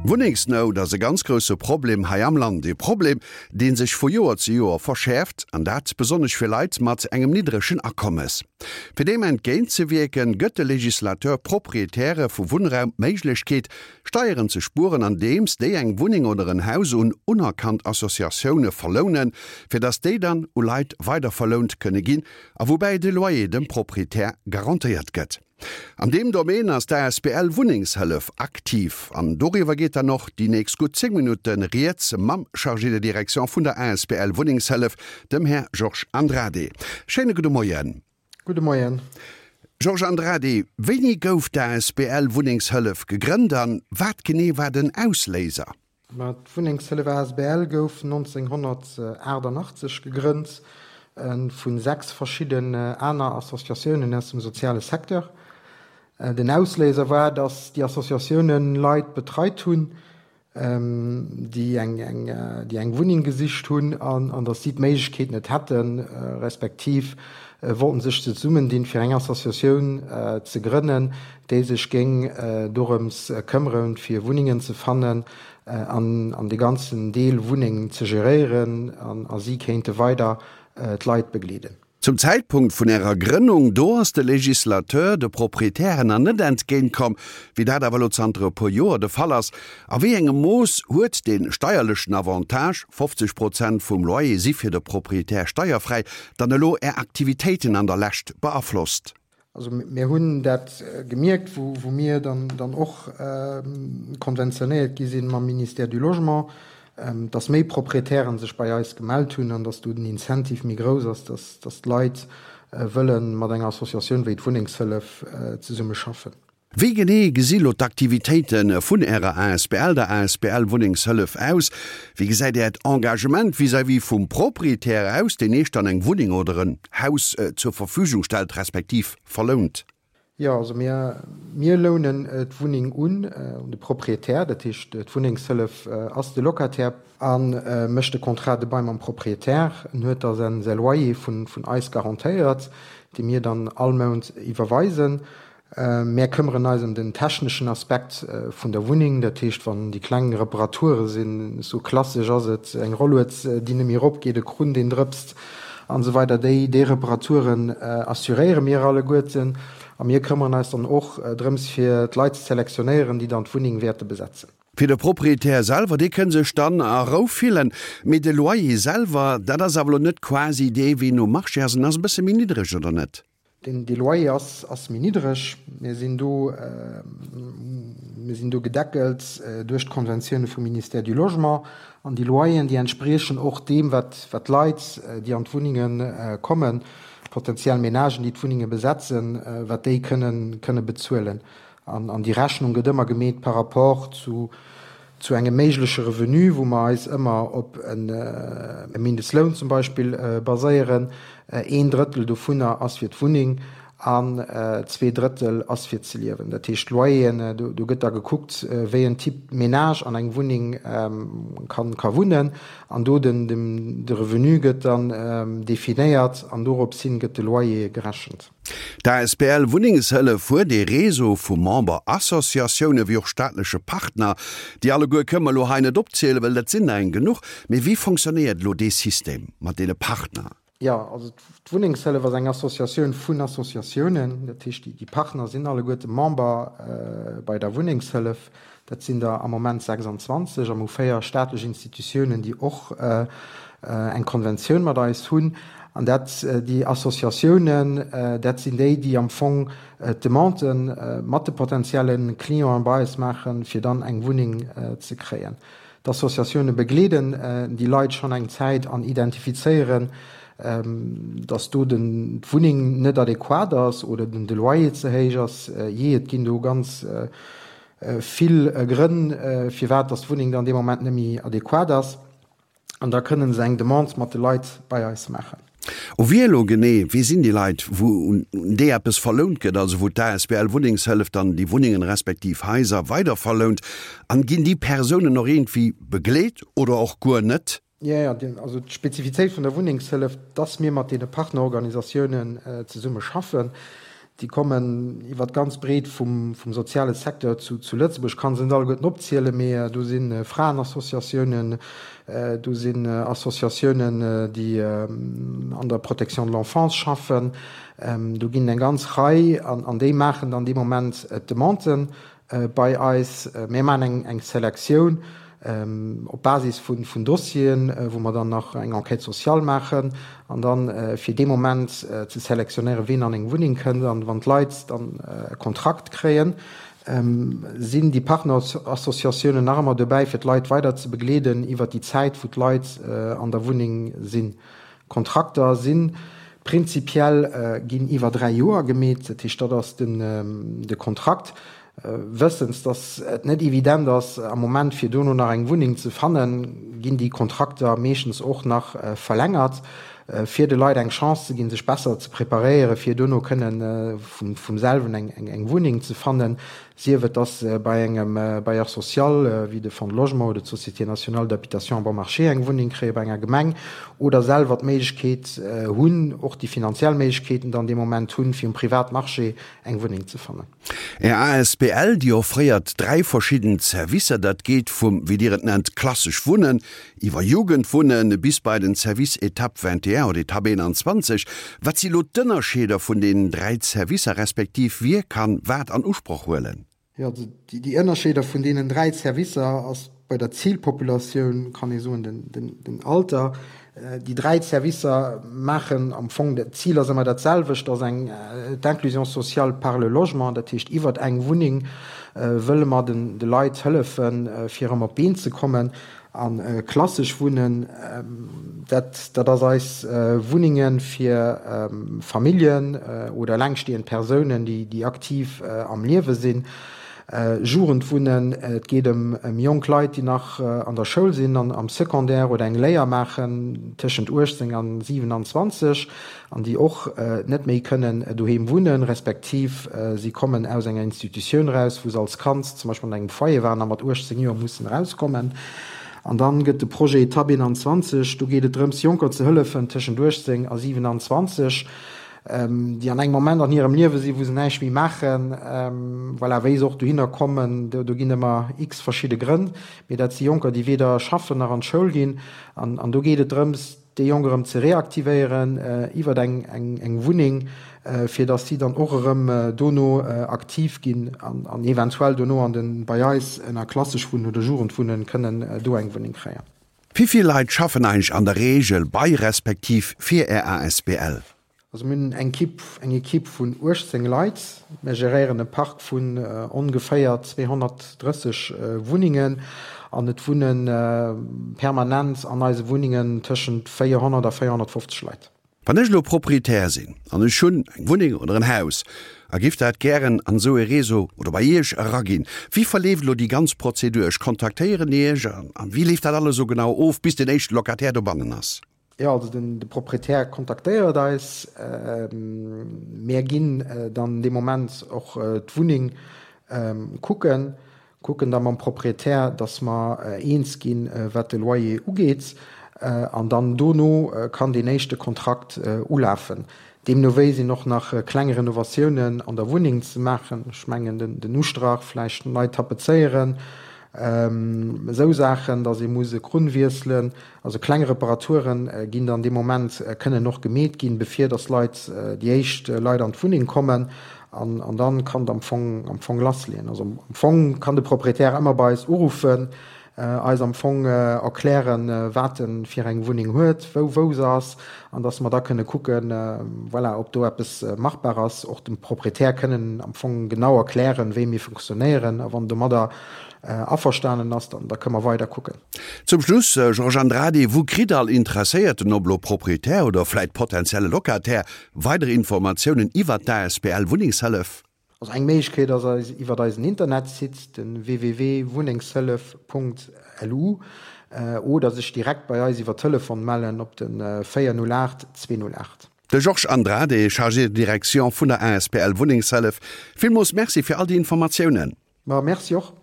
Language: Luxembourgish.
Wunnengsnout ass e ganz grousse Problem hei am Land. E Problem, dee sech vu Joer zu Joer verschäerft, an dat besonnesch fir Leit mat engem niddregen Akommes. Fir deem entgéint ze wierken, gëtt de Legislateur Proprietäre vu Wunnraum d'Méiglechkeet, Steieren ze spueren, andeems déi eng Wunneng oder en Haus un unerkannt Associatioune verlounen, fir datt déi dann u Leit weiderverlount kënne ginn, a woubäi de Loyer dem Proprietär garantéiert gëtt. An deem Domaine ass d'ASBL Wunnengshëllef aktiv an doriwwer geet dann och déi nächst gutt 10 Minutte Rieds mam Chargé de direction vun der asbl Wunnengshëllef, dem Här Georges Andrade. Schéine gudde Moien. Gudde Moien. Georges Andrade, wéini gouf d'ASBL Wunnengshëllef gegrënnt an wat genee war den Ausléiser? Ma d'Wunnengshëllef asbl gouf 1988 gegrënnt vu 6 verschidden aner Associatiounen aus dem soziale Secteur. Den Ausléiser war, datt déi Associatiounen Leit betreit hunn, déi eng Wunneng gesicht hunn an datt si d'Méiglechkeet net hätten, respektiv wollten sech zesummendinn, fir eng Associatioun ze grënnen, déi sech géing dorëms këmmeren, fir Wunnengen ze fannen an an de ganzen Deel Wunneng ze geréieren, a si kéinte weider d'Leit begleeden. Zum Zäitpunkt vun Ärer Grënnung, do ass de Législateur de Proprietären nach net entgéint komm, wéi dat awer elo zanter e puer Joer de Fall ass. A wéi engem Mooss huet dee steierlechen Avantage, 50 Prozent vum Loyer si fir de Proprietär steierfräi, dann elo Är Aktivitéiten an der Lescht beaflosst? Also mir hunn dat gemierkt, wou mir dann och konventionéiert gi sinn mam Ministère du Logement, dass méi Proprietären sech bei eis gemellt hunn an dass do den Incentive méi grouss ass, dass d'Leit wëlle mat enger Associatioun wéi d'Wunnengshëllef zesummeschaffen. Wéi genee gesi lo d'Aktivitéite vun Ärer asbl, der asbl Wunnengshëllef, aus? Wéi gesäit Äert Engagement vis-à-vis vum Proprietär aus, deen Iech dann eng Wunneng oder en Haus zur Verfügung stellt, respektiv verlount? Jo, also mir, mir lounen d'Wunneng un, un de Proprietär. Dat heescht, d'Wunnengshëllef ass de Locataire a mécht de Contrat de bail mam Proprietär. En huet da säi Loyer vun eis garantéiert, dee mir dann all Mount iwwerweisen. Mär këmmeren eis ëm den techneschen Aspekt vun der Wunneng, dat heescht wann déi kleng Reparature sinn, sou klassesch ass et, eng Rollued déi net méi erop geet, e Krunn deen drëpst an esou weider, déi déi Reparaturen assuréiere mir alleguerten a mir këmmeren eis dann och drëms fir d'Leit ze selektionéieren, déi dann d'Wunneng wäerte besetzen. Fir de Proprietär selwer, dee kënn sech dann a Rou fillen, mee de Loyer selwer, dat ass awer elo net quasi dee wéi nom Marché ass, en ass e bësse méi niddreg, oder net? Den dee Loyer ass ass méi niddreg. Mir sinn do mir sinn do gedeckelt duerch d'Konventioune vum Ministère du Logement. An déi Loyeren, déi entspriechen och deem, wat wat d'Leit, déi an d'Wunnenge kommen, potenziell Ménagen, déi d'Wunnenge besetzen, wat déi kënnen kënne bezuelen. An an déi Rechnung gëtt ëmmer gemeet par rapport zu zu engem méigleche Revenu, wou mer eis ëmmer op e Mindestloun zum Beispill baséieren. Een Drëttel dovunner ass fir d'Wunneng an 2 Drëttel ass fir ze liewen. Dat heescht, d'Loyeren, do gëtt da gekuckt, wéi en Type Ménage an eng Wunneng ka wunnen an do den de Revenu gëtt dann definéiert an dorops hin gëtt de Loyer gerechent. D'asbl Wunnengshëllef huet ee Réseau vu Memberassociatioune wéi och staatleche Partner. Déi alleguer kënne mer elo hei net opzielen, well dat sinn der eng genuch. Mee wéi fonctionnéiert elo dee System mat deene Partner? Jo, also d'Wunnengshëllef ass eng Associatioun vun Associatiounen. Dat heescht, déi Partner sinn alleguerte Member bei der Wunnengshëllef. Dat sinn der am Moment 26 a mer hu 4 staatlech Institutiounen, déi och eng Konventioun mat eis hunn. An dat, déi Associatiounen, dat sinn déi, déi am Fong d'Demande mat de potenzielle Clienten bei eis maachen, fir dann eng Wunneng ze kréien. D'Associatioune begleeden déi Leit schonn eng Zäit an identifizéieren, datt do den d'Wunneng net adequat ass oder den de Loyer ze héich ass. Jee, et ginn do ganz vill Grënn, firwat datt d'Wunneng dann dee Moment net méi adequat ass. An da kënnen se eng Demande mat de Leit bei eis maachen. U wie elo genee, wie sinn déi Leit, wou un déi eppes verlount gëtt, also wou d'ASBL Wunnengshëllef dann déi Wunnengen respektiv Haiser weiderverlount? An ginn déi Persounen och iergendwéi begleet oder och guer net? Jo, jo, also d'Spezifitéit vun der Wunnengshëllef, dass mir mat deene Partnerorganisatiounen zesumme schaffen. Déi kommen iwwer d'ganz Breet vum soziale Secteur zu Lëtzebuerg. Ech kann se net alleguerten opzielen, mee do si Fraenassociatiounen, do sinn Associatiounen, déi an der Protection de l'enfance schaffen. Do ginn et eng ganz Rei an déi maachen dann dee Moment d'Demanden bei eis. Mir maachen eng Selektioun op Basis vun Dossieren, wou mer dann nach eng Enquête sociale maachen an dann fir dee Moment ze selektionéieren, ween an eng Wunneng kënnt. An wann d'Leit dann e Kontrakt kréien, sinn déi Partnerassociatiounen nach ëmmer dobäi, fir d'Leit weider ze begleeden iwwert déi Zäit, wou d'Leit an der Wunneng sinn. Kontrakter si prinzipiell ginn iwwer 3 Joer gemeet, dat heescht dat ass den de Kontrakt. Wëssens, datt et net evident ass am Moment fir dono nach eng Wunneng ze fannen, ginn déi Kontrakter meeschtens och nach verlängert, fir de Leit eng Chance ze ginn, sech besser ze preparéieren, fir dono kënnen vum selwen eng Wunneng ze fannen. Sief et dass se bei engem Bailleur social, wéi de Fonds de Logement oder d'Société nationale d'habitation bon marché eng Wunneng kréien, bei enger Gemeng, oder selwer d'Méiglechkeet hunn, och déi finanziell Méiglechkeeten dann dee Moment hunn, fir um Privatmarché eng Wunneng ze fannen. Är asbl, déi offréiert 3 verschidden Servicer. Dat geet vum, wéi Dir et nennt, klassesch Wunnen, Iwwer Jugendwunne bis bei den Service Etape 21 oder Etape 21, wat si lo d'Ënnerscheeder vun deenen 3 Servicer, respektiv wie kann wat an Usproch huelen? Jo, also déi Ënnerscheeder vun deenen 3 Servicer ass bei der Zilpopulatioun, kann ee soen, den Alter. Déi 3 Servicer maachen am Fong, d'Zil ass ëmmer dat selwecht, ass eng d'Inclusion sociale par le logement, dat heescht iwwert eng Wunneng wëlle mer de Leit hëllefen, fir erëm op d'Been ze kommen. A klassesch Wunnen, dat dat ass eis Wunnenge fir Familljen oder elengstehend Persounen, déi déi aktiv am Liewe sinn. Jugendwunnen, et geet ëm ëm jonk Leit, déi nach an der Schoul sinn, an am Secondaire oder eng Léier maachen, tëschent 18 an 27. An déi och net méi kënnen doheem wunnen, respektiv si kommen aus enger Institutioun eraus, wou se als Kand zum Beispill an engem Foyer waren a mat 18 Joer mussen erauskommen. An dann gëtt de Projet Etapp 21, do geet et drëms, Jonker ze hëllefen tëschent 18 a 27, déi an engem Moment an hirem Liewe sinn, wou se näischt méi maachen, voilà, wéi se och dohinner kommen, do ginn ëmmer x verschidde Grënn, mee dat si Jonker, déi weder schaffen nach an d'Schoul ginn. An do geet et drëms, déi Jonk erëm ze reaktivéieren iwwert eng Wunneng, fir datt si dann och erëm dono aktiv ginn an eventuell dono an de bei eis ënner klassesch Wunnen oder Jugendwunnen kënnen do eng Wunneng kréien. Wéi vill Leit schaffen eigentlech an der Reegel bei respektiv fir Är asbl? Also mir hunn eng Equipe, eng Equipe vun 18 Leit. Mir geréieren e Park vun ongeféier 230 Wunnengen an et wunne permanent an eise Wunnengen tëschent 400 a 450 Leit. Wann ech elo Proprietär sinn an ech hunn eng Wunneng oder en Haus a giff dat gären an esou e Réseau oder bei Iech eraginn, wéi verleeft elo déi ganz Prozedur? Ech kontaktéieren Iech an wéi leeft dat alles esou genau of bis den éischte Locataire dobannen ass? Jo, also den de Proprietär kontaktéiert eis. Mär ginn dann dee Moment och d'Wunneng kucken, kucken da mam Proprietär, datt mer eens ginn, wat de Loyer ugeet. An dann dono kann deen éischte Kontrakt ulafen. Deemno wéi sinn och nach kleng Renovatiounen an der Wunneng ze maachen. Ech mengen den Ustrach vläicht nei tapezéieren, esou Saachen, datt ee muss e Krunn wiesselen. Also kleng Reparaturen ginn dann dee Moment, kënnen och gemeet ginn, bevir dass Leit, déi éischt Leit an d'Wunneng kommen. An, an dann kann et am Fong, am Fong lassleeën. Also am Fong kann de Proprietär ëmmer bei eis uruffen, eis am Fong erklären, wat e fir eng Wunneng huet, wou, wou se ass, an dass mer da kënne kucken, voilà, ob do eppes machbar ass. Och dem Proprietär kënnen am Fong genau erklären, wéi mir funktionéieren. A wann domadder averstanen ass, dann, da kënne mer weider kucken. Zum Schluss, Georges Andrade, wou kritt all Interesséierten, ob elo Proprietär oder vläit potentielle Locataire, weider Informatiounen iwwert d'asbl Wunnengshëllef? Also eng Méiglechkeet ass eis iwwert eisen Internetsite, den www.wunnengshëllef.lu, oder sech direkt bei eis iwwer Telefon mellen op den 408 208. De Georges Andrade, Chargé de direction vun der asbl Wunnengshëllef, villmools Merci fir all déi Informatiounen. Ma merci och.